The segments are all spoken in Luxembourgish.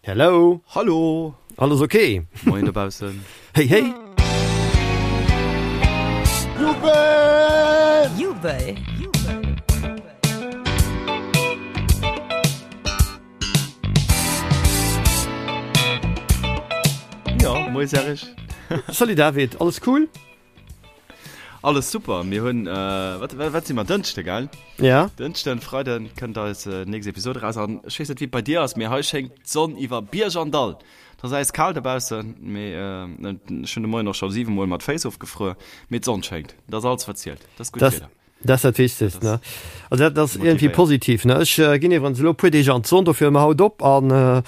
Hello! Hallo! Alles ok? Moien dobaussen! Hey hey! Jubel! Jubel! Jo, moie Serge! Salut David, alles cool? Alles super, mir hunn, wat, wat si mer, Dënschde, gell? Ja. Dënschden, Freiden kënnt eis nächst Episode raus an ech weess net wéi et bei dir ass, mee hei schéngt d'Sonn iwwer Bierg an Dall. Et ass äiskal dobaussen, mee ech hunn de Moien och scho 7 mol mat Féiss ofgefruer, mee d'Sonn schéngt, dat ass alles wat zielt, dat ass gutt Wieder. Dat ass dat Wichtegst, ne? Also dat ass iergendwéi positiv, ne? Ech ginn iwwerens elo e puer Deeg an d'Sonn, dofir hu mer haut op an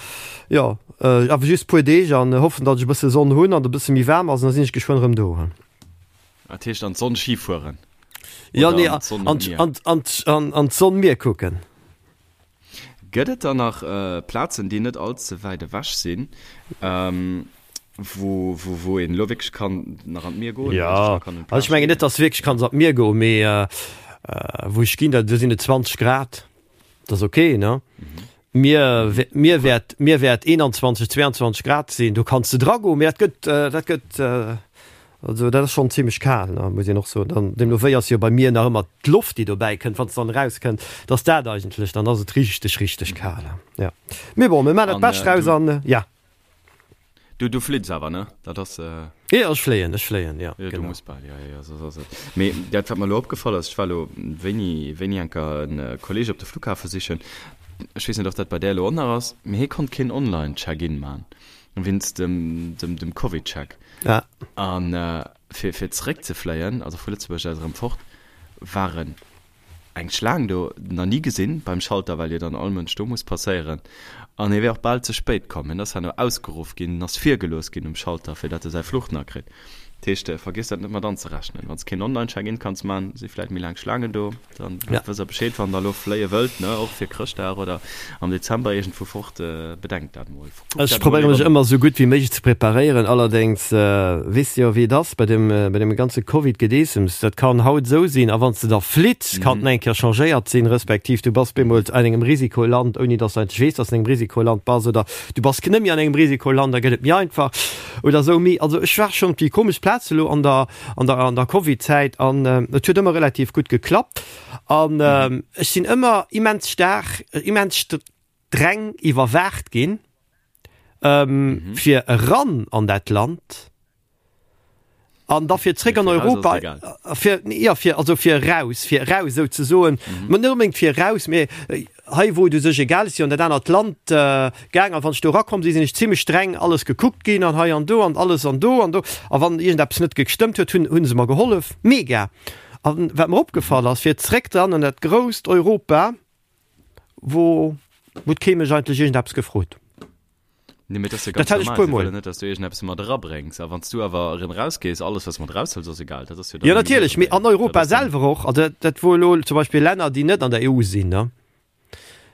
jo, awer just puer Deeg an hoffen, datt ech e bësse Sonn hunn an et e bësse méi waarm ass an da sinn ech geschwënn erëm do. Dat heescht an d'Sonn Ski fueren? Jo, nee, an d'Sonn Mier kucken. Gëtt et dann nach Plazen, déi net all ze wäit ewech sinn, wou wou een elo wierklech kann nach an d'Mier goen? Jo, also ech mengen net, dass du wierklech kanns an d'Mier goen, mee wou ech ginn, do sinn et 20 Grad, dat ass ok, ne? Mier, Mier wäert, Mier wäert 21, 22 Grad sinn, do kanns de dra goen, mee dat gëtt, dat gëtt, also dat ass schonn zimmlech kal, ne, muss een och soen. Dann deemno wéi ass jo bei mir nach ëmmer d'Loft, déi dobäi kënnt, wann s dann erauskënnt, dass dat eigentlech, dann ass et richteg, richteg kal, ja. Mee bon, mir maachen dat Bescht draus an, ja. Du, du flitts awer, ne? Dat ass. Jo, ech fléien, ech fléien, jo, genau. Du muss bal, jo, jo, jo, soss ass et. Mee dat, wat mer elo opgefall ass, ech war elo wéini, wéini enker en Kolleeg op de Flughafe sichen, ech weess net, ob dat bei där elo och nach ass, mee hie konnt keen Online-Check-in man, wéinst dem, dem, dem Covid-Check. Ja. An fir, fir zeréckzefléien, also vu Lëtzebuerg aus erëm fort, waren Eng Schlaang do, nach ni gesinn beim Schalter, well jo dann all Mënsch do muss passéieren. An hie wär och bal ze spéit komm. Hien ass herno ausgeruff ginn, en ass virgelooss ginn um Schalter, fir datt e säi Fluch nach kritt. Dat heescht, vergiess dat net mat anzerechnen. Wann s keen Online-Check-in kanns man, si vläit méi laang Schlaangen do. Dann wësst der Bescheed, wann der elo fléie wëllt, ne, och fir Chrëschtdag oder am Dezember iergendwou fort, bedenkt dat mol. Ech probéiere mech ëmmer esou gutt wéi méiglech ze preparéieren. Allerdéngs weess de jo wéi et ass bei dem bei deem ganze Covid-Gedeessems. Dat kann haut esou sinn a wann s de da flitts, kann et nach eng Kéier changéiert sinn, respektiv du bass bemools an engem Risikoland, ouni datt s de eigentlech weess, datt s de an engem Risikoland bass oder du bass net méi an engem Risikoland, da gëtt et méi einfach oder esou. Mee also ech war schonn op déi komesch Plaz elo an der an der an der Covid-Zäit an et huet ëmmer relativ gutt geklappt an ech sinn ëmmer immens staark, immens streng iwwerwaacht ginn, fir eran an dat Land an da fir zréck an Europa, fir, jo, fir, also fir eraus, fir eraus souzesoen, mä net onbedéngt fir eraus, mä hei wou et u sech egal ass, jo an dat anert Land gaang an wann ech do erakomm sinn, sinn ech zimmlech streng alles gekuckt ginn an hei an do an alles an do an do a wann iergendeppes net gestëmmt huet, hunn hunn se mer gehollef. Mega! An wat mer opgefall ass, fir zréck dann an dat grousst Europa, Wou huet kee mech eigentlech iergendeppes gefrot. Nee, mee dat ass jo ganz Dat hat ech normal. puer Si Mol. wëllen net, dass du iergendeppes mat erabréngs. A wann s du awer erëm erausgees, alles, wat s du mat eraushëls, ass egal. Dat ass jo dann Jo, nëmmen hir natierlech, mee Probleem. an Europa Dat ass dann. selwer och. Also dat, dat wor elo zum Beispill Länner, déi net an der EU sinn, ne?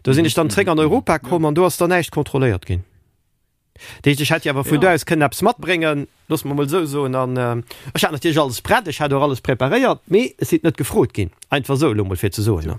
Do sinn ech dann zréck an Europa komm an do ass dann näischt kontrolléiert ginn. Dat heescht, ech hätt jo awer vun do aus kënnen eppes matbréngen, loosse mer emol esou soen. An ech hat natierlech alles prett, ech hat och alles preparéiert, mee ech sinn net gefrot ginn. Einfach esou elo emol fir ze soen.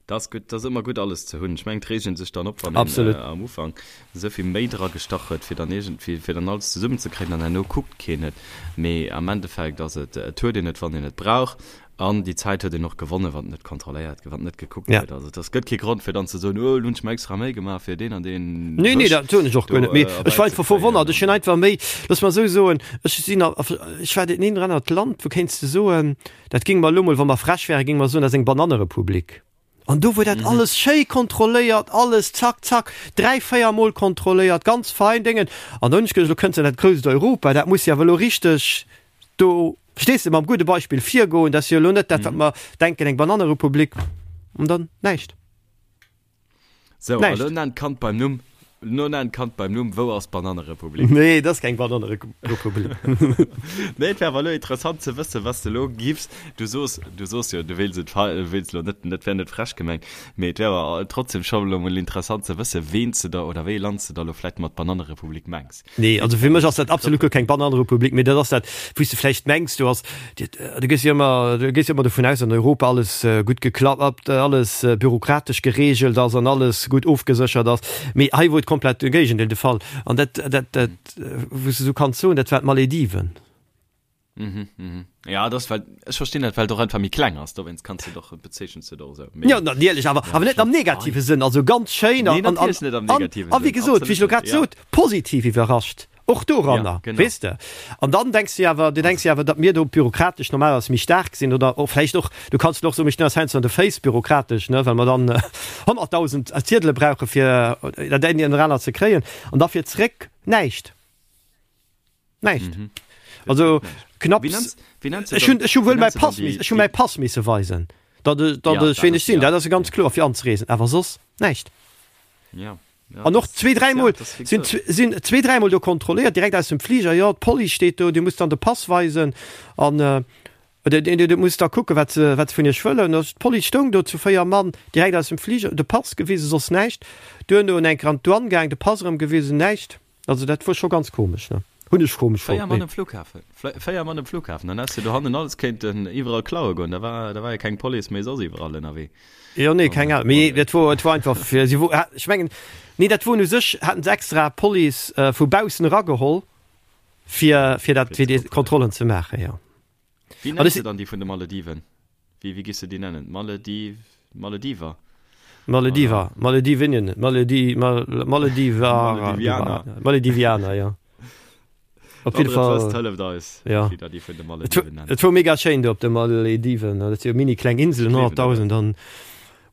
Dat ass gutt, dat ass ëmmer gutt alles ze hunn. Ech mengen, et reegt een sech dann op, wann een am Ufank esou vill Méi dra gestach huet, fir dann iergendwéi, fir dann alles zesummenzekréien an herno kuckt keen et. Mee am Endeffekt ass et, et huet een et, wann een et brauch. An déi Zäit huet een och gewonnen, wann et net kontrolléiert gëtt, wann net gekuckt Ja. gëtt. Also et ass gëtt kee Grond fir dann ze soen, oh, elo hunn ech mer extra Méi gemaach fir deen an deen Nee, nee, Wësch dat soen ech och do guer net. Mee ech war einfach erbäizekréien. verwonnert. Ech hunn einfach méi, looss mer esou soen, ech sinn a, ech war dat een oder anert Land, wou kéints de soen, dat géinge mer elo mol, wa mer frech wären, géinge mer soen, dat ass eng Banannerepublik. An do wor dat alles schéi kontrolléiert, alles zack, zack, 3, 4 mol kontrolléiert, ganz fein Déngen. An da hunn ech geduecht, elo kënns de an dat grousst Europa, dat muss jo awer elo richteg do, verstees de, mam gudde Beispill virgoen, dat ass jo elo net dat, wat mer denken, eng Banannerepublik. An dann näischt. Sou, a lo nenn d'Kand beim Numm. Lo nenn d'Kand beim Numm, Wou ass d'Banannerepublik? Nee, dat ass keng Banannerepublik. Nee, et wär awer elo interessant ze wëssen, wat s de elo giffs. Du soos, du soos jo, du wéils et, wéils elo net, net wär net frech gemengt, mee et wär awer trotzdem scho elo mol interessant ze wëssen, ween s de da oder wéi ee Land s de da elo vläicht mat Banannerepublik mengs. Nee, also fir mech ass dat absolut guer keng Banannerepublik, mee dat ass dat, wou s de vläicht mengs, du ass, du gees jo ëmmer, du gees jo ëmmer dovun aus, datt an Europa alles gutt geklappt, alles bürokratesch gereegelt ass an alles gutt ofgeséchert ass. Mee hei wou et. komplett de Géigendeel de Fall. An dat, dat, dat, wou s de sou kanns soen, dat war d'Malediven. Mhm, mhm. Ja, das well ech verstinn dat, well et och einfach méi kleng ass, dowéinst kanns de doch bezeechens de och esou. Mee Ja, natierlech, awer, ja, awer net am negative Sënn, also ganz schéin an, Nee, an, natierlech net am an, negativen a wéi Sënn, gesot, wéi absolut ech elo net, grad ja. sot, positiv iwwerrascht, och doranner, Ja, genau. weess de. An dann denks de awer, du denks jo awer, datt mir do bürokratesch normalerweis méi staark sinn oder och vläicht och, du kanns och soen, mir stinn eis heiansdo an de Féiss bürokratesch, ne, well mer dann 100.000 Ziedele brauche fir dat eng oder anert ze kréien an da fir zréck näischt. Näischt. Mhm. Also knapps. Wéi nenns, wéi nenns du Ech hunn, dann, ech hu wéi wuel mäi nenns du dann Pass miss, déi, ech hu déi, mäi Pass misse weisen, datt ech, datt ja, ech dat ween ech ass, sinn. ja, Dat ass jo ganz ja, kloer fir anzereesen, awer soss näischt. ja, ja, An och das, zwee, das, ja, dräimol das, wéi sinn, gesot. sinn zwee, dräimol do kontrolléiert, direkt aus dem Fliger, jo, d'Police steet do, Dir musst dann de Pass weisen an oder Dir, Dir musst da kucken, wat se, wat se vun Iech wëllen. Also d'Police stoung do zu 4 Mann, direkt aus dem Fliger, de Pass gewisen, soss näischt. Duerno en enker an d'Douane gaang, de Pass erëm gewisen, näischt. Also dat wor scho ganz komesch, ne? Hunn ech komesch Véier fonnt, Mann mee. um Flughafen, véier Mann um Flughafen, dann häss de dohannen alles kéinten iwwerall klaue goen, da war, da war jo keng Police méi soss iwwerall ënnerwee. Jo, nee, keng Ahnung, mee et wor, et wor einfach fir, si wor, ech mengen, nee, dat wor u sech, haten se extra Police vu baussen erageholl, fir, fir dat, fir déi Kontrollen ze maachen, jo. Wéi nenns de dann déi vun de Malediven? Wéi, wéi giss de déi nennen? Malediv, Malediver? Malediver, Maledivinien, Maledi, Mal, Malediver, Maledivianer. Maledivianer, jo. Op jidde Wann der et Fall. wësst, hëlleft eis, Ja. wéi der déi vun de Et Malediven nennt. et wor mega schéin do op de Malediven. Dat si jo mini kleng Inselen, Gleewen der dat. 100.000 an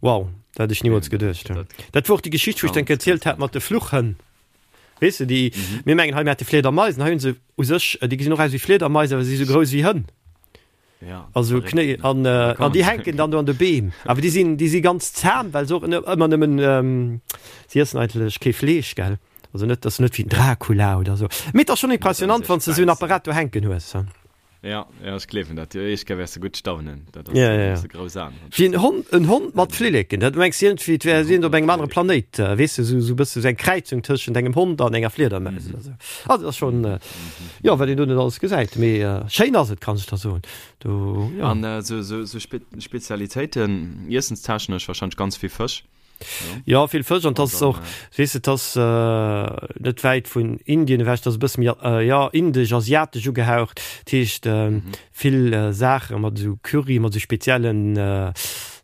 wow, dat hätt ech nimools Gleewen der geduecht. dat. Dat wor och déi Geschicht, wou ech Ganz, dann erzielt ganz hat mat de Fluchhënn. Weess de, déi, Mhm. mir mengen hei, mir hätte Fliedermaisen, hei hunn se u sech, déi gesinn och aus wéi Fliedermais, awer si si sou grouss wéi Hënn. Ja, Also verréckt, Knéi ne? an, Da äh, an kommen déi se. hänken dann do an de Beem. Awer déi sinn, déi si ganz zahm, well se och ëmmer nëmmen, ähm, si iessen eigentlech kee Fleesch, gell? Also net, dat ass net wéi den Dracula oder sou. Mee et ass schonn Net an impressionant, sech wann s de sou en bäissen. Apparat do hänken hues. Ja, ja, ech gleewen dat. Déi éischt Kéier wäers de gutt staunen. Dat ass, Ja, ja, ja. hues de grouss Aen. Wéi en Hond, en Hond mat Flilleken. Dat mengs iergendwéi, et wär En si Hond op mat engem anere Flilleken. Planéit, weess de, sou, sou bësse sou eng Kräizung tëschent engem Hond an enger Fliedermaus Mhm. oder sou. Also dat ass schonn, Mhm. jo, wat een do net alles gesäit. Mee schéin ass et, kann ech der soen. Do, jo. An sou, sou, sou Spe Spezialitéiten, iessenstechnesch wahrscheinlech ganz vill Fësch. Jo, vill Fësch an 't ass och, weess de, 't ass net wäit vun Indien ewech, 't ass e bësse méi, jo, indesch, asiatesch ugehaucht. Dat heescht, vill Saache mat esou Curry, mat esou speziellen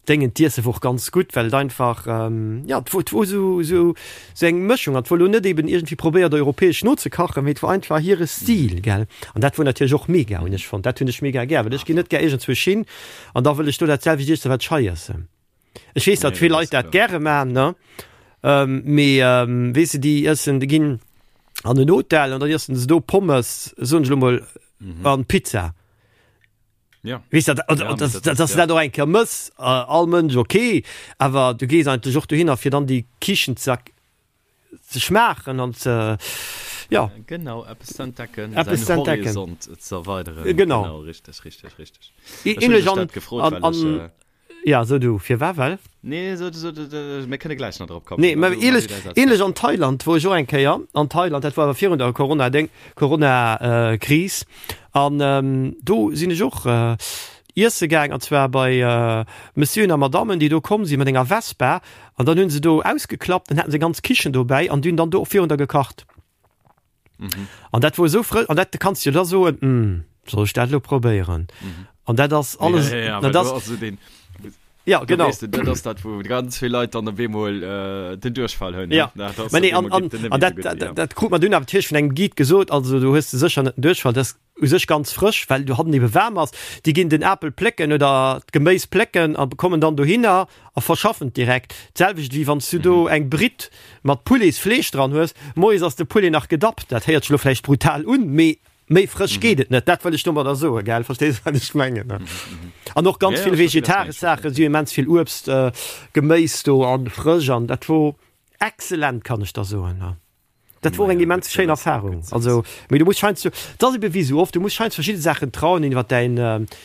Déngen. D'Iesse wor och ganz gutt, well et einfach, jo, 't wor, 't wor esou, esou, esou eng Mëschung an 't wor elo net eben iergendwéi probéiert, europäesch nozekachen, mee 't wor einfach hire Stil, gell. An dat wor natierlech och mega, hunn ech fonnt. Dat hunn ech mega gär, well ech ginn net gär iergendzwousch hin an da wëll ech do dat selwecht iessen, wat ech hei iessen. Ech weess, datt Nee, vill dat Leit ass dat kloer. gäre maachen, ne? Ähm, mee ähm, weess de, déi iessen, déi ginn an en Hotel an dann iessen se do Pommes, soen ech elo mol, Mhm. an Pizza. Ja. Weess dat, an, Ja, an, mee dass, dat dass, ass, dass du ja. dat och eng Kéier mëss, äh, all Mënsch, okay, awer du gees eigentlech och dohinner, fir dann déi Kichen ze ze schmaachen an ze, ja. Genau, eppes ze entdecken, Eppes säin ze entdecken. Horizont ze erweideren. Genau. Genau, richteg, richteg, richteg. Ech hunn Ähnlech dech an, dat gefrot, an, well ech, an, äh, Ja, so du, firwat well? Nee, so, so, mir kënne gläich nach drop kommen. Nee, mä ähnlech, ähnlech an Thailand, wor ech och eng Kéier an Thailand, dat war awer virun der Corona-Déng, Corona-Kris, an do sinn ech och iesse gaang, an zwar bei Messieuren a Madammen, déi do komm si mat enger Vespa, an dann hunn se do ausgeklappt, dann haten se eng ganz Kichen dobäi an déi hunn dann do och virun der gekacht. Mhm. An dat wor esou frësch, an dat kanns du da soen, hm, soll ech dat elo probéieren? Mhm. An dat ass alles, Ja, ja, ja, an well dat do ass, ass so den, ja, do genau. weess de, dat ass dat, wou ganz vill Leit dann op eemol äh, den Duerchfall hunn. Ja, ne? Dat ass mä op nee, an, eemol an, geet den net an méi dat, sou gutt, dat, ja. dat krut mer dunn awer natierlech vun engem Guide gesot, also du hues de sécher net den Duerchfall, dat ass u sech ganz frësch, well do hannen ebe waarm ass. Déi ginn den Apel plécken oder d'Geméis plécken a kommen dann dohinner a verschaffen et direkt. D'selwecht wéi wann s du do eng Britt mat Pouletsfleesch dran hues, moies ass de Poulet nach gedappt. Dat héiert sech elo vläicht brutal un, mee méi frësch geet et net. Dat wëll ech domadder soen, gell? Verstees wat ech mengen, ne? An och ganz Ja, ja, vill ech verstinn, wat vegetaresch du mengs. Saachen, si hu immens vill Uebst, Geméis do an frësch an dat wor excellent, kann ech der soen, ne? Dat wor eng immens schéin Erfahrung. Also, mee du muss scheinst du, dat ass ebe wéi sou oft, du muss scheinst verschidde Saachen trauen, iwwer däin,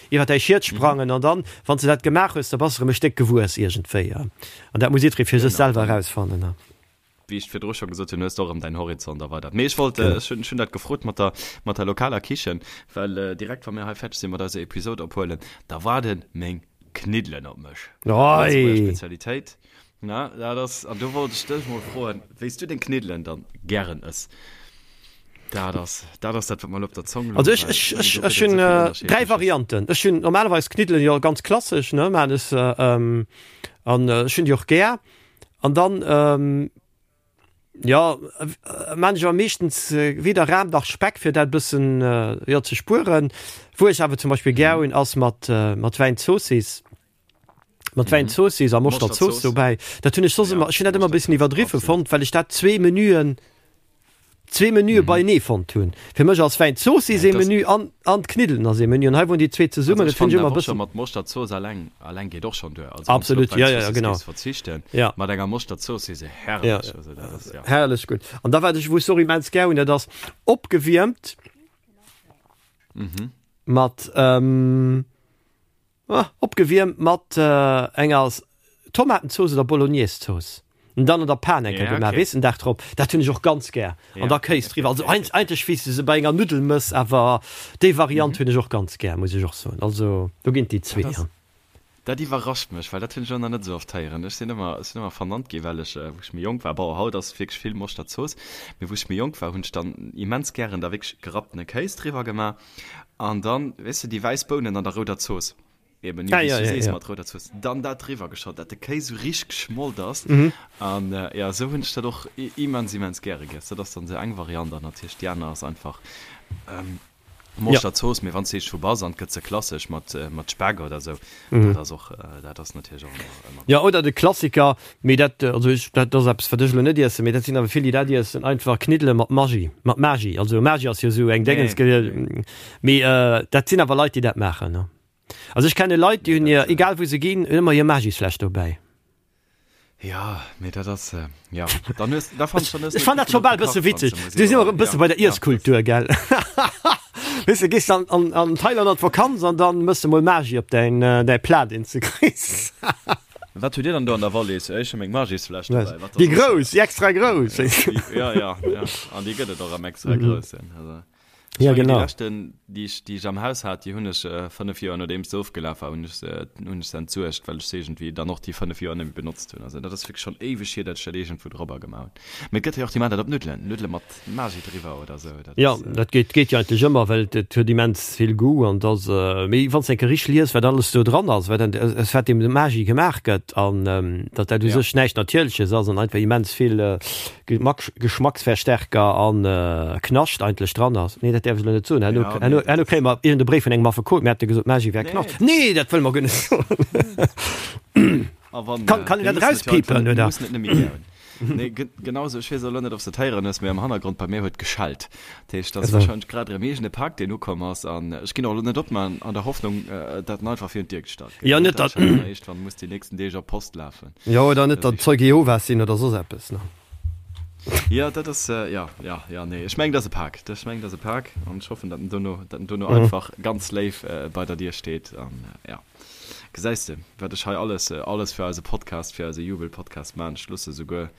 iwwer däi Schiet sprangen an dann, wann s de dat gemaach hues, da bass de erëm e Stéck gewuess iergendwéi. An dat muss jiddweree fir sech selwer erausfannen. Wéi ech virdru scho gesot hunn, hues de och erëm däin Horizont erweidert. Mee ech wollt, ech hunn, ech hunn dat gefrot mat der, mat der lokaler Kichen, well direkt wa mir hei fäerdeg sinn mat eiser Episode ophuelen, da waarde meng Kniddelen op mech. Lëtzebuerger Spezialitéit. Na, dat ass, an do wollt ech dech mol froen, wéi s du deng Kniddelen dann gären ëss. Dat ass, dat ass dat, wat mer elo op der Zong louch. Also ech, ech, ech, ech hunn 3 Varianten. Ech hunn normalerweis Kniddelen jo ganz klassesch, ne, maan ech se, an ech hunn déi och gär. An dann, jo, maan ech awer meeschtens weder Ram nach Speck, fir dat e bëssen, jo, ze spueren. Wou ech awer zum Beispill gär hunn, ass mat, mat Wäinzoossiss. Mat Wäinzoossiss a Moschterzooss dobäi. Dat hunn ech soss ëmmer, ech hunn dat ëmmer e bëssen iwwerdriwwe fonnt, well ech dat zwee Menüen, zwee Menüe beienee fonnt hunn. Fir mech ass Wäinzoossiss ee Menü an, an d'Kniddelen ass ee Menü. An hei woren déi zwee zesummen, dat hunn ech ëmmer e bëssen. Mat Moschterzooss alleng, alleng geet och schonn duer. Also wann s du op Absolut, ja, ja, ja, genau. Wäinzoossiss géifs verzichten, Ja. mat enger Moschterzooss, se herrlech. Ja, Also dat ass, ja. Herrlech gutt. An da wat ech, wou ech och immens gär hunn, dat ass opgewiermt mat, Opgewiermt mat enger Tomatenzooss oder Bolognese-Zooss. An dann an der Pan eng Kéier gemaach, weess, den Dag drop. Dat hunn ech och ganz gär. An da Kéis driwwer. Also eigentlech wéi s de se bei enger Nuddel mëss, awer déi Variant hunn ech och ganz gär, muss ech och soen. Also do ginn et déi zwee. Dat iwwerrascht mech, well dat hunn ech och nach net esou oft héieren. Ech sinn ëmmer, ech sinn ëmmer vernannt ginn, well ech, wou ech méi jonk war, bon, haut ass wierklech vill Moschterzooss, mee wou ech méi jonk war, hunn ech dann immens gären da wierklech gerapptene Kéis driwwer gemaach. An dann, weess de, déi wäiss Bounen an der rouder Zooss, eben, jo, Ah, wéi s ja, du ja, sees, ja. mat rouder Zooss, dann dat driwwer geschott, dat de Kéis esou richteg geschmolt ass. Mhm. An, jo, esou hunn ech dat och immens, immens gäre giess. Dat ass dann esou eng Variant an natierlech déi aner ass einfach Moschterzooss, mee wann s de eescht vu bass an et gëtt se klassesch mat, mat Speck oder esou, dat ass och, dat ass natierlech och ëmmer, ëmmer Jo, gutt. oder de Klassiker, Mee dat, also ech, dat ass eppes, wat ech elo net iessen, mee dat sinn awer vill, déi dat iessen, einfach Kniddele mat Maggi, mat Magi. Also Magi ass jo esou eng Déngens, Nee, mee dat sinn awer Leit, déi dat maachen, ne. Also ech kenne Leit, déi nee, hunn hir, dat. egal wou se ginn, hunn ëmmer hir Magisfläsch dobäi. Jo, mee dat ass, jo, dann hues, da fannen ech, dann hues de Ech fannen dat scho bal e bësse witzeg. Du si mer e bësse bei der Iesskultur, gell? Weess de, gees an, an, an Thailand an d'Vakanz an dann mëss de mol Magi op däin, däi Plat, deen s de kriss. Wat hutt Dir dann do an der Wallis? Ech hu meng Magisfläsch dobäi. Wat Déi grouss, déi extra grouss. Ja, ja, ja. An déi gëtt et och am extra groussen. Also, ech ja, mengen, genau. Déi leschten, déi ech, déi ech am Haus hat, déi hunn ech 5 Joer nodeems se ofgelaf war, hunn ech se, hunn ech se entsuergt, well ech se iergendwéi dann och déi 5 Joer net méi benotzt hunn. Also dat ass wierklech schonn éiweg hier, datt ech dat iergendwou dorobber gemaach hunn. Mee et gëtt jo och déi maachen dat op Nuddelen, Nuddele mat Magi driwwer oder sou. Dat Jo, ass, dat geet, geet jo eigentlech ëmmer, well et huet immens vill Goût an et ass, mee wann s de eng Kéier richteg lies, wat alles do dran ass, wat aus wat deem Magi gemaach gëtt an datt dat u ja. sech näischt Natierleches ass an einfach immens vill Gemack, Geschmacksverstärker an Knascht eigentlech dran ass. Nee, dat däerf ech elo net soen, herno, Ja, herno, nee, dat herno ass. kréie mer iergend e Bréif vun engem Affekot, mir hätte gesot, Magi wär Nee. Knascht. Nee, dat wëlle mer guer net soen. A wann, Kann, kann een mir dat mussen et jo einfach erauspiepen, net, mir oder? mussen et net méi gär hunn. Nee, genau sou. Ech weess elo net, ob s de et héieren hues, mee am Hannergrond bei mir huet geschellt. Dat heescht, dat ass warscheinlech grad erëm iergend e Pak, deen ukomm ass. An ech ginn och elo net op, mä an der Hoffnung, dat en einfach virun d'Dier gestallt gëtt. Jo, net dat datt. Iergendwann muss déi nächsten Deeg op d'Post lafen. Jo, oder net datt Zeuge Jehovas sinn oder soss eppes, ne? Jo, dat ass, jo, jo, jo, nee, ech mengen, dat ass e Pak. Ech mengen, dat ass e Pak an ech hoffen, datt en dono, datt en dono einfach ganz léif bei der Dier steet an, jo. Gesäis de, wat ech hei alles, alles fir eise Podcast, fir eise Jubel-Podcast man. Ech loosse souguer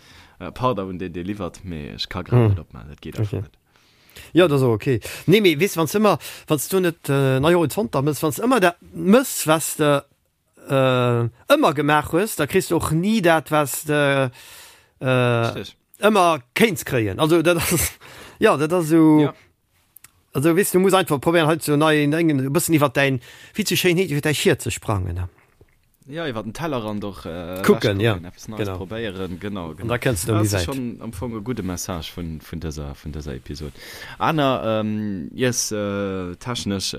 Pardon un deen, dee liwwert, mee ech ka grad net opman, dat geet einfach net. Jo, dat ass och ok. Nee, mee weess, wann s de ëmmer, wann s du net nei Horizonter mëss, wann s de ëmmer dat mëss, wat s de ëmmer gemaach hues, da kriss de och ni dat, wat s de ëmmer kéints kréien. Also dat ass, jo, dat ass esou. Also weess du muss einfach probéieren hei zu neien Déngen e bëssen iwwer däin, wéi et sou schéin heet, iwwer däi Schiet ze sprangen. Ja, iwwer den Tellerrand och kucken, ja, eppes Neies genau. probéieren, genau, genau. An da kënns de méi wäit. Dat ass wäit. schonn am Fong e gudde Message vun, vun dëser, vun dëser Episod. Aner iess technesch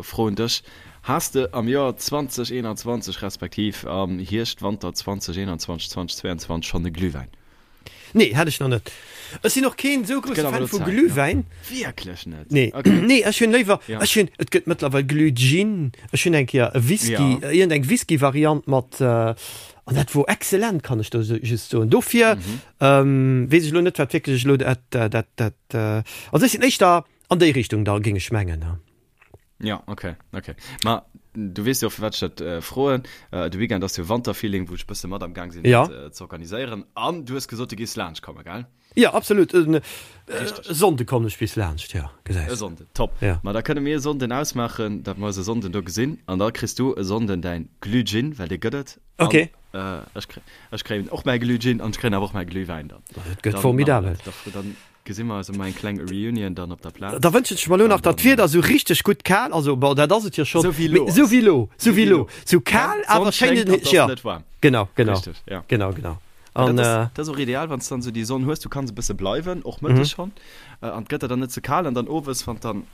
Fro un dech, Has de am Joer 2021 respektiv am Hierscht, Wanter 2021, 2022 schonn e Glühwäin? Nee, hat ech nach net. Ech sinn och keen esou grousse Fan vu Glühwäin. Wierklech net? Nee, nee, ech hunn léiwer, ech hunn, et gëtt mëttlerweil Glühgin, ech hunn eng Kéier e Whisky, iergend eng Whisky-Variant mat, an dat wor excellent, kann ech do just soen. Dofir weess ech elo net, wat wierklech elo dat, dat, dat, also ech sinn éischter an déi Richtung da, géing ech mengen. Ja, okay, okay. Ma du weess jo, firwat ech dat äh, froen. Äh, de Weekend ass jo Wanterfeeling, wou ech bësse mat am Gang sinn, Ja. dat äh, ze organiséieren. An du hues gesot, du gees laanscht kommen, gell? Ja, absolut. En, äh, Richteg. Sonnde kommen ech bis laanscht, ja, E gesäis. Sonnden, top. Ja. Ma da kënne mir e Sonnden ausmaachen, dat mer eis e Sonnden do gesinn. An da kriss du e Sonnden däin Glühgin, well dee gëtt et. An Okay. Ech kréien, ech kréien och mäi Glühgin an ech kréien awer och mäi Glühwäin dann. Dat gëtt formidabel. Dann gesi mer eis ëm eng kleng Reunion dann op der Plaz. Da wënschen ech mer elo nach, datt d'Wieder esou richteg gutt kal, also bon, dat ass et jo schonn, mee esou wéi elo, esou wéi elo, esou kal, awer schéin, jo, genau, genau, genau, genau. An dat ass och ideal, wann s de dann esou déi Sonn hues, du kanns e bësse bleiwen, och mëttes schonn, an et gëtt der dann net ze kal an dann owes, wann dann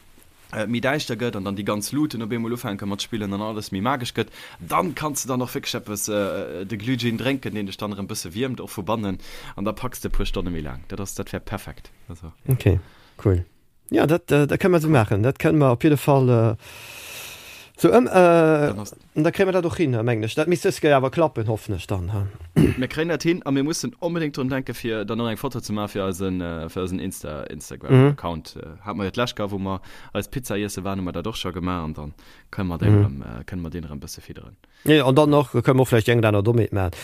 et méi däischter gëtt an dann déi ganz Luuten op eemol ufänke mat spillen an alles méi magesch gëtt, dann kanns de dann och wierklech eppes, de Glühgin drénken, deen dech dann erëm bësse wiermt, och vu bannen, an da packs de e puer Stonne méi laang. Dat ass, dat wär perfekt. Also, ja. Okay, cool. Jo, dat, dat kënne mer esou maachen. Dat kënne mer op jidde Fall esou ëm. An da kréie mer dat och hin, mengen ech. Dat misst dës Kéier awer klappen, hoffen ech dann. Mir kréien dat hin a mir mussen onbedéngt drun denken, fir dann och eng Foto ze maachen fir eisen, fir eisen Insta, Instagram-Account. Hate mer jo d'lescht Kéier, wou mer eis Pizza iesse waren, hu mer dat och scho gemaach an dann kënne mer deen erëm, kënne mer deen erëm e bësse fidderen. Jo, an dann och kënne mer och vläicht déi eng oder aner Dommheet maachen.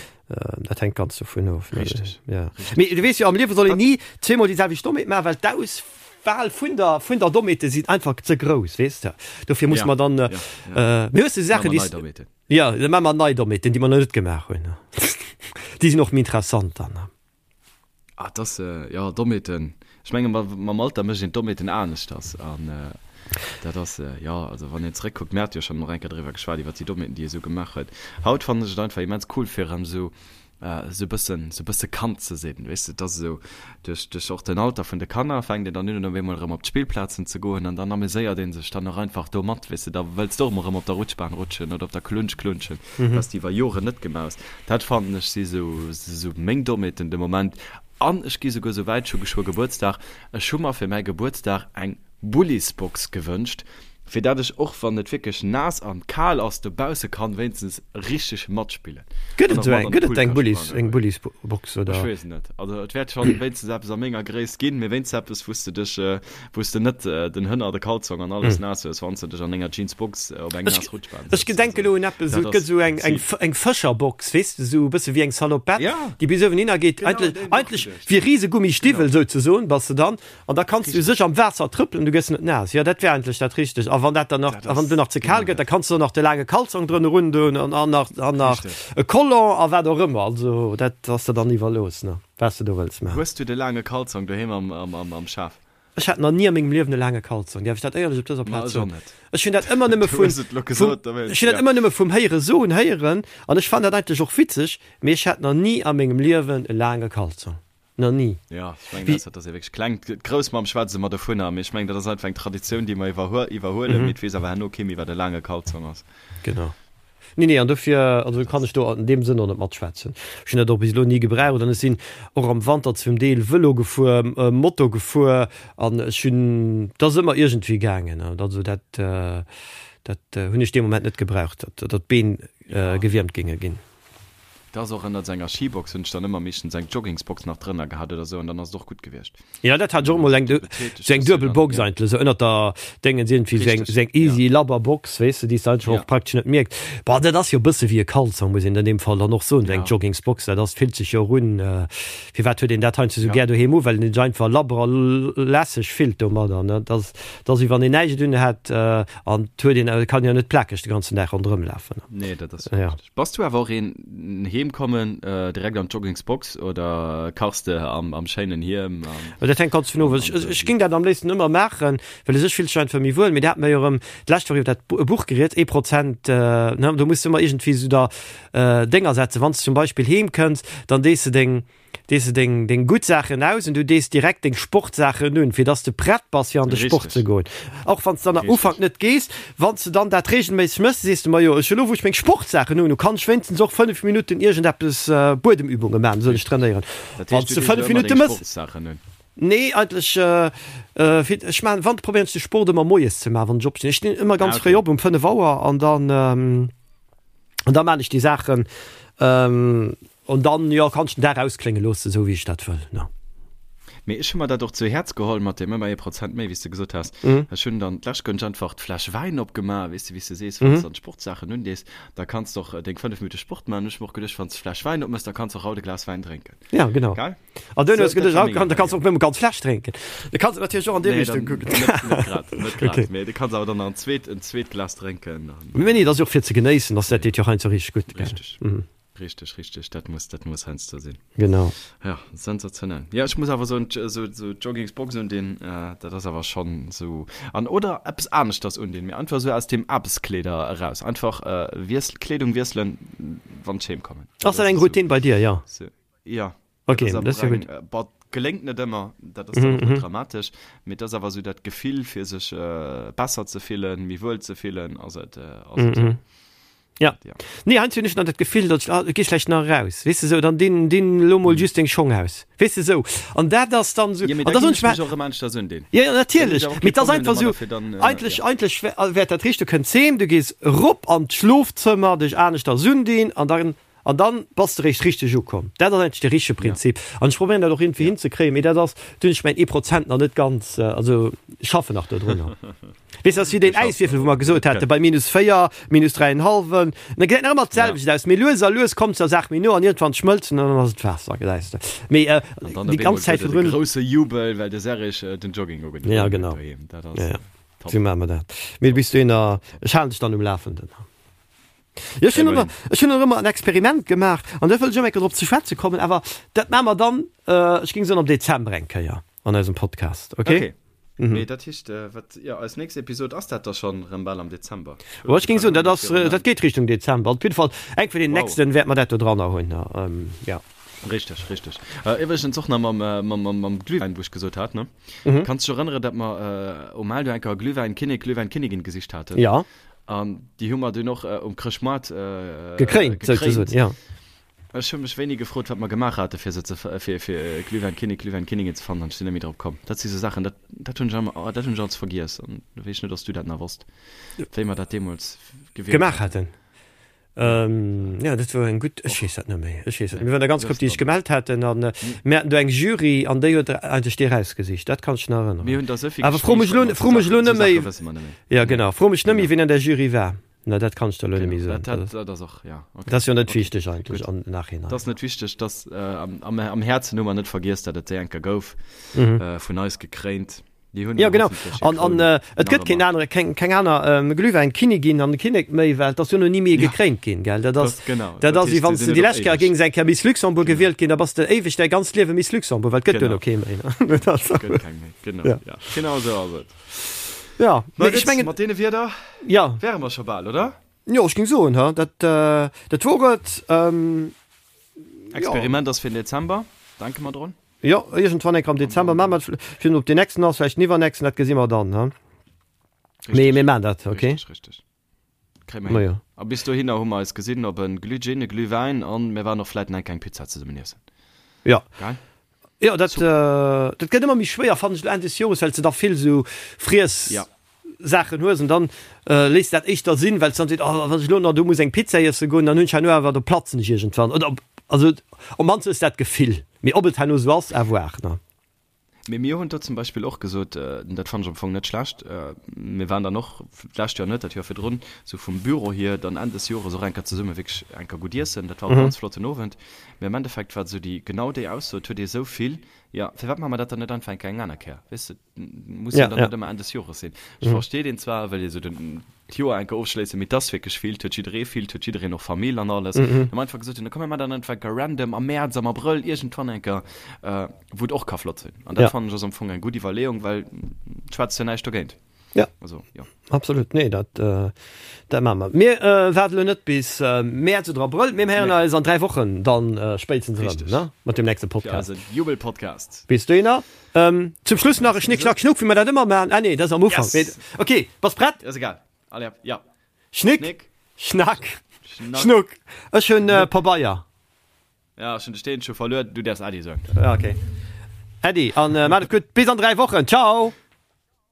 Dat hänkt ganz dovun of. Richteg. Ja. Mee du weess jo, am Liewe soll een ni zweemol déi selwecht Dommheet maachen, well d'Aus. Wahl vun der vun der Dommheete sinn einfach ze grouss, weess de. Dofir muss mer dann mir hues de Saachen déi ja da maache mer nei Dommheeten, déi mer nach net gemaach hunn. Déi sinn och méi interessant dann. Ah et ass jo Dommheeten, ech menge mam Alter mécht een d'Dommheeten aneschters an dat ass jo also wann een zeréckkuckt, mir hate jo schonn och eng Kéier driwwer geschwat iwwer déi Dommheeten déi ee sou gemaach huet. Haut fannen ech et einfach immens cool fir erëm esou esou e bëssen, esou e bësse Kand ze sinn, weess de, et ass esou, duerch, duerch och den Alter vun de Kanner fänkt een dann un op eemol erëm op d'Spillplazen ze goen an dann ameséiert ee sech dann och einfach do mat, weess de, da wëlls de och emol erëm op der Rutschbahn rutschen oder op der Klunsch klunschen, wat s de iwwer Joren net gemaach hues. Dat fannen ech si esou, esou meng Dommheeten de Moment an ech gi souguer esou wäit, ech hu geschwë Gebuertsdag, ech hu mer fir mäi Gebuertsdag eng Bullisbox gewënscht, fir dat ech och wann et wierklech naass an kal ass dobausse kann wéinstens richteg matspillen. Gëtt et esou eng, gëtt et eng Bullis, eng Bullisbox oder? Ech weess et net, also et wäert schonn wéinstens eppes a menger Gréisst ginn, mee wéinstens eppes wou s de dech, wou s de net den Hënner, de Kalzong an alles naass hues wann s de dech an denger Jeansbox op eng naass Rutschbahn sëtz. Ech gedenke elo un eppes, esou et gëtt esou eng, eng, eng Fëscherbox, weess de, esou e bësse wéi eng Salopette, déi bis uewen hinner geet, eigentlech, eigentlech wéi Risegummistiwwel souzesoen bass de dann. An da kanns du sech am Waasser trëppelen, du gëss net naass. Jo, dat wär eigentlech dat Richtegt. A wann dat dann nach, a wann et nach ze kal gëtt, da kanns du och nach de laange Kalzong drënner undoen an, an nach, an nach e Collant a wat och ëmmer. Also dat ass der dann iwwerlooss, ne, wat s de do wëlls maachen. Hues du de laange Kalzong doheem am, am, am, am Schaf? Ech hat nach ni a mengem Liewen e laange Kalzong, däerf ech dat éierlech op dëser Plaz soen? Ech hunn dat ëmmer nëmme vun, vum, ech hunn dat ëmmer nëmme vum Héiere soen héieren an ech fannen dat eigentlech och witzeg, mee ech hat nach ni a mengem Liewen e laange Kalzong. Nach ni. Jo, ech mengen, ausser dass ee wierklech kleng, d'Groussmamm schwätzt ëmmer dovunner, mee ech mengen, dat ass einfach eng Traditioun, déi mer iwwerhuelen, mee et weess awer herno kee méi, wat e laange Kalzong ass. Genau. Nee, nee, an dofir, also kann ech do an deem Sënn och net matschwätzen. Ech hunn dat och bis elo ni gebraucht an ech sinn och am Wanter zum Deel Vëlo gefuer, Moto gefuer an ech hunn, et ass ëmmer iergendwéi gaangen. Also dat, dat hunn ech dee Moment net gebraucht, datt d'Been gewiermt géinge ginn. Et ass och ënnert senger Skibox hunn ech dann ëmmer meeschtens eng Joggingsbox nach drënner gehat oder sou an dann ass et och gutt gewiescht. Jo dat hat ech och emol eng sou eng duebel Box eigentlech sou ënnert der Déngens iergendwéi sou eng sou eng easy labber Box weess de déi s de eigentlech och praktesch net mierks. Bon dat ass jo e bësse wéi e Kalzong muss een an deem Fall dann och soen, sou eng Joggingsbox dat ass fillt sech jo och un. Firwat huet een dat heiansdo sou gär doheem u well een sech einfach labber a lässeg fillt domadder ne. Dat ass dat ass wéi wann een näischt un hätt an et huet een kann jo net plakeg de ganzen Dag ronderëm lafen. Nee dat ass jo richteg. Bass du awer och een heem kommen direkt an d'Joggingsbox oder kachs de am schéinen Hiem? Dat hänkt ganz dovun of. Ech géing dat am léifsten ëmmer maachen, well u sech fillt sech einfach méi wuel. Mee dat hat mer jo erëm d'lescht Woch iwwer dat Buch geriet, ee Prozent, ne, do muss de ëmmer iergendwéi esou der Dénger setzen. Wann s de zum Beispill heem kënns, dann dees de deng Dees de deng, deng gutt Saachen aus an du dees direkt deng Sportsaachen un, fir dass de prett bass fir an de Sport ze goen. Och wann s de dann am Ufank net gees, wann s de dann dat reegelméisseg méchs, sees de, Majo, ech elo wou ech meng Sportsaachen un hu, kann ech wéinstens och 5 Minutten iergendeppes, Buedemübunge maachen, soll ech trainéieren. Wann s de 5 Minutte méchs. Nee, eigentlech, fir, ech maachen, wann, probéieren ech de Sport ëmmer moies ze maachen, wann ech opstinn. Ech stinn ëmmer ganz fréi op, um 5 Auer an dann, an da maan ech déi Saachen. An dann, jo, kann ech den Dag ausklénge loossen, esou wéi ech dat wëll, ne. Mee ech hu mer dat och zu Häerz geholl mat deem ëmmer ee Prozent méi, wéi s de gesot has. Ech hunn dann d'lescht Gönsch einfach d'Fläsch Wäin opgemaach, weess de, wéi s de sees, wann s de dann d'Sportsaachen undees, da kanns de och deng 5 Minutte Sport maachen. Hunn ech mer och geduecht, wann s de d'Fläsch Wäin opmëss, da kanns de och haut e Glas Wäin drénken. Ja, genau. Gell? An duerno hues de geduecht, haut kann, da kanns de och nëmme ganz Fläsch drénken. Du kanns et natierlech och an déi Richtung kucken. Nee, dann net, net grad, net grad. Okay. Mee du kanns awer dann nach en zweet, en zweet Glas drénken. Mee nee, dat ass jo och fir ze genéissen, dass dat deet jo heiansdo richteg gutt, gell? Richteg. Richteg, richteg, dat muss, dat muss heiansdo sinn. Genau. Ja, sensationell. Ja, ech muss awer soen, esou, esou d'Joggingsbox undinn, dat ass awer schonn esou. An oder eppes aneschters undinn, mee einfach esou aus dem Aarbechtskleeder eraus. Einfach wiessel, Kleedung wiesselen, wann ech heem kommen. Ass dat eng Routine bei dir, ja? Ja. Okay, dat ass jo gutt. Bon, geléngt net ëmmer, dat ass dann och net dramatesch, mee et ass awer esou dat Gefill, fir sech besser ze fillen, méi wuel ze fillen, ass et, ass et. Ja. Nee, heiansdo hunn ech nach dat Gefill, datt ech, ah, geh schlecht nach eraus, weess de sou, dann dinn, dinn elo mol just deng Schong aus, weess de sou. An dat ass dann sou, Ja, mee an da da ginn soen ech ech mer, mech och erëm aneschters undinn. Ja, ja, Dann hunn ech natierlech, awer mee kee et ass Problem einfach domadder, sou, fir dann, eigentlech, ja. eigentlech wär, wäert dat richteg, du kënns heem, du gees erop an d'Schlofzëmmer, dech aneschters undinn an dann An dann bass de réischt richteg ukomm. Dat ass eigentlech de richtege Prinzip. An ech probéieren dat och iergendwéi hinzekréien, mee dat ass, do hunn ech mäin ee Prozent nach net ganz, also ech schaffen nach dodrunner. Weess, dat ass wéi deen Äiswierfel, wou mer gesot haten, bei minus 4, minus dräienhallwen, da gesäit nach ëmmer d'selwecht aus, mee lues a lues kommt der Saach méi no an iergendwann schmëlzt en an dann ass et Waasser, gesäis de. Mee déi ganz Zäit virdrun. An dann op eemol gëtt et e grousse Jubel, well de Serrig den Jogging ugedoen huet doheem. Dat ass top. Sou maache mer dat. Mee bis dohinner, ech halen dech dann um Lafenden. Jo, ech hunn ëmmer, ech hunn och ëmmer en Experiment gemaach an da wëll ech och eng Kéier drop ze schwätze kommen, awer dat maache mer dann, ech géing soen am Dezember eng Kéier an eisem Podcast, okay? Okay. Mee dat heescht, wat, jo, eis nächst Episod ass dat da schonn erëm bal am Dezember? Jo, ech géing soen, dat ass, dat geet Richtung Dezember. Op jidde Fall, eng vun den nächsten wäerte mer dat do dranner hunn, jo. Richteg, richteg. Iwwregens och nach mam, mam, mam Glühwäin, wou ech gesot hat, ne? Kanns dech erënnere, datt mer um Maal do eng Kéier Glühwäin-Kinnek, Glühwäin-Kinnigin gesicht haten? Jo. An déi hu mer dunn och um Chrëschtmoart gekréint, souzesoen, jo. Ech hu mech wéini gefrot, wat mer gemaach hate fir se ze, fir, fir Glühwäin-Kinnek, Glühwäin-Kinnigin ze fannen, an ech sinn net méi drop komm. Dat si sou Saachen, dat, dat hunn ech ëmmer, dat hunn ech als vergiess. An do weess ech net, ob s du dat nach wosst, wéi mer dat deemools gewielt Gemaach haten. Jo, dat wor eng gutt, ech weess dat net méi, ech weess dat net. Mir waren der ganz Grupp, déi sech gemellt haten an mir haten do eng Jury an déi huet eigentlech déi erausgesicht, dat kann ech nach erënneren. Mir hunn der souvill Awer fro mech elo, fro mech elo net méi, jo genau, fro mech net méi, wien an där Jury war, na dat kann ech der elo net méi soen. Dat, dat ass och, ja, okay. Dat ass jo net wichteg eigentlech am Nachhinein. Dat ass net wichteg, dass am, am Häerzen hu mer net vergiess, datt et déi eng Kéier gouf, vun eis gekréint. Jo genau, an an et gëtt keen anere, keng keng aner Glühwäinkinnigin an Kinnek méi, well et ass jo no ni méi gekréint ginn, gell? Dat ass dat ass wéi wann s de déi lescht Kéier géings eng Kéier Miss Luxembourg gewielt ginn, da bass de éiweg däi ganzt Liewe Miss Luxembourg, well et gëtt duerno kee méi. Gëtt keng méi, genau, ja. Genau esou ass et. Ja, mee ech mengen. Mat deene Wierder wäre mer scho bal, oder? Jo, ech géing soen, ha, dat dat wor et. Experiment ass fir den Dezember, denke mer drun. Jo, iergendwann eng Kéier am Dezember maache mer et. Fir ob deen nächsten ass, vläicht den iwwernächsten, dat gesi mer dann, ne? Mee mir maachen dat, okay? Richteg, richteg. Kréie mer hin. A bis dohinner hu mer eis gesinn op e Glühgin, e Glühwäin an mir waren och vläit nach eng kleng Pizza zesummen iessen. Jo. Geil? Jo, dat, dat gëtt ëmmer méi schwéier, fannen ech, elo Enn des Jores, well s de da vill esou Friess. Ja. Saachen hues an dann léiss dat éischter sinn, well s dann seet, oh wann ech elo nach do muss eng Pizza iesse goen, dann hunn ech herno awer, do platzen ech iergendwann oder also op mannst hues dat Gefill, mee ob et herno esou ass, à voir ne. Mee mir hunn do zum Beispill och gesot, dat fannen ech am Fong net schlecht, mir waren dann och, d'lescht Joer net, dat Joer virdrun, esou vum Büro hier dann Enn des Jores och eng Kéier zesumme wierklech eng Kéier gutt iessen, dat war och e ganz flotten Owend, mee am Endeffekt war esou déi, genau déi Ausso, et huet ee esou vill, jo firwat maache mer dat dann net einfach eng Kéier eng aner Kéier, weess de. Muss ja, dann ja. net ëmmer Enn des Jores sinn. Ech mhm. verstehe den zwar, well ee sou den d'Joer enke ofschléissen, mee dass wierklech vill, huet jidderee vill, huet jiddereen och Famill an alles. Mhm. Dann einfach gesot, dann komme mer dann einfach random am März, am Abrëll iergendwann enker, äh, wou et och ka flott sinn. An dat ja. fannen ech ass am Fong eng gutt Iwwerleeung, well schwätzt jo näischt dogéint. Ja. Also, ja. Absolut, nee, dat, äh, dat maache mer. Mir äh, waarde lo net bis äh, Mäerz oder Abrëll, mir héieren nee. eis an 3 Wochen dann äh, spéitstens erëm, ne? Mat dem nächste Podcast. Fir eise Jubelpodcast. Bis dohinner. Ähm, zum Schluss nach e Schnick, Schnack, Schnuck, wéi mer dat ëmmer maachen. Ah nee, dat ass am Ufank. Yes. Okay, bass prett? Ass egal. Allez, ja. Schnick, Schnick, Schnack, Schnack. Schnuck. Ech hunn äh, Pabeier. Ja, ech hunn de Steen scho verluer. Du däerfs Äddi soen. Ja, okay. Äddi, an äh, maat et gutt. Bis an 3 Wochen. Ciao!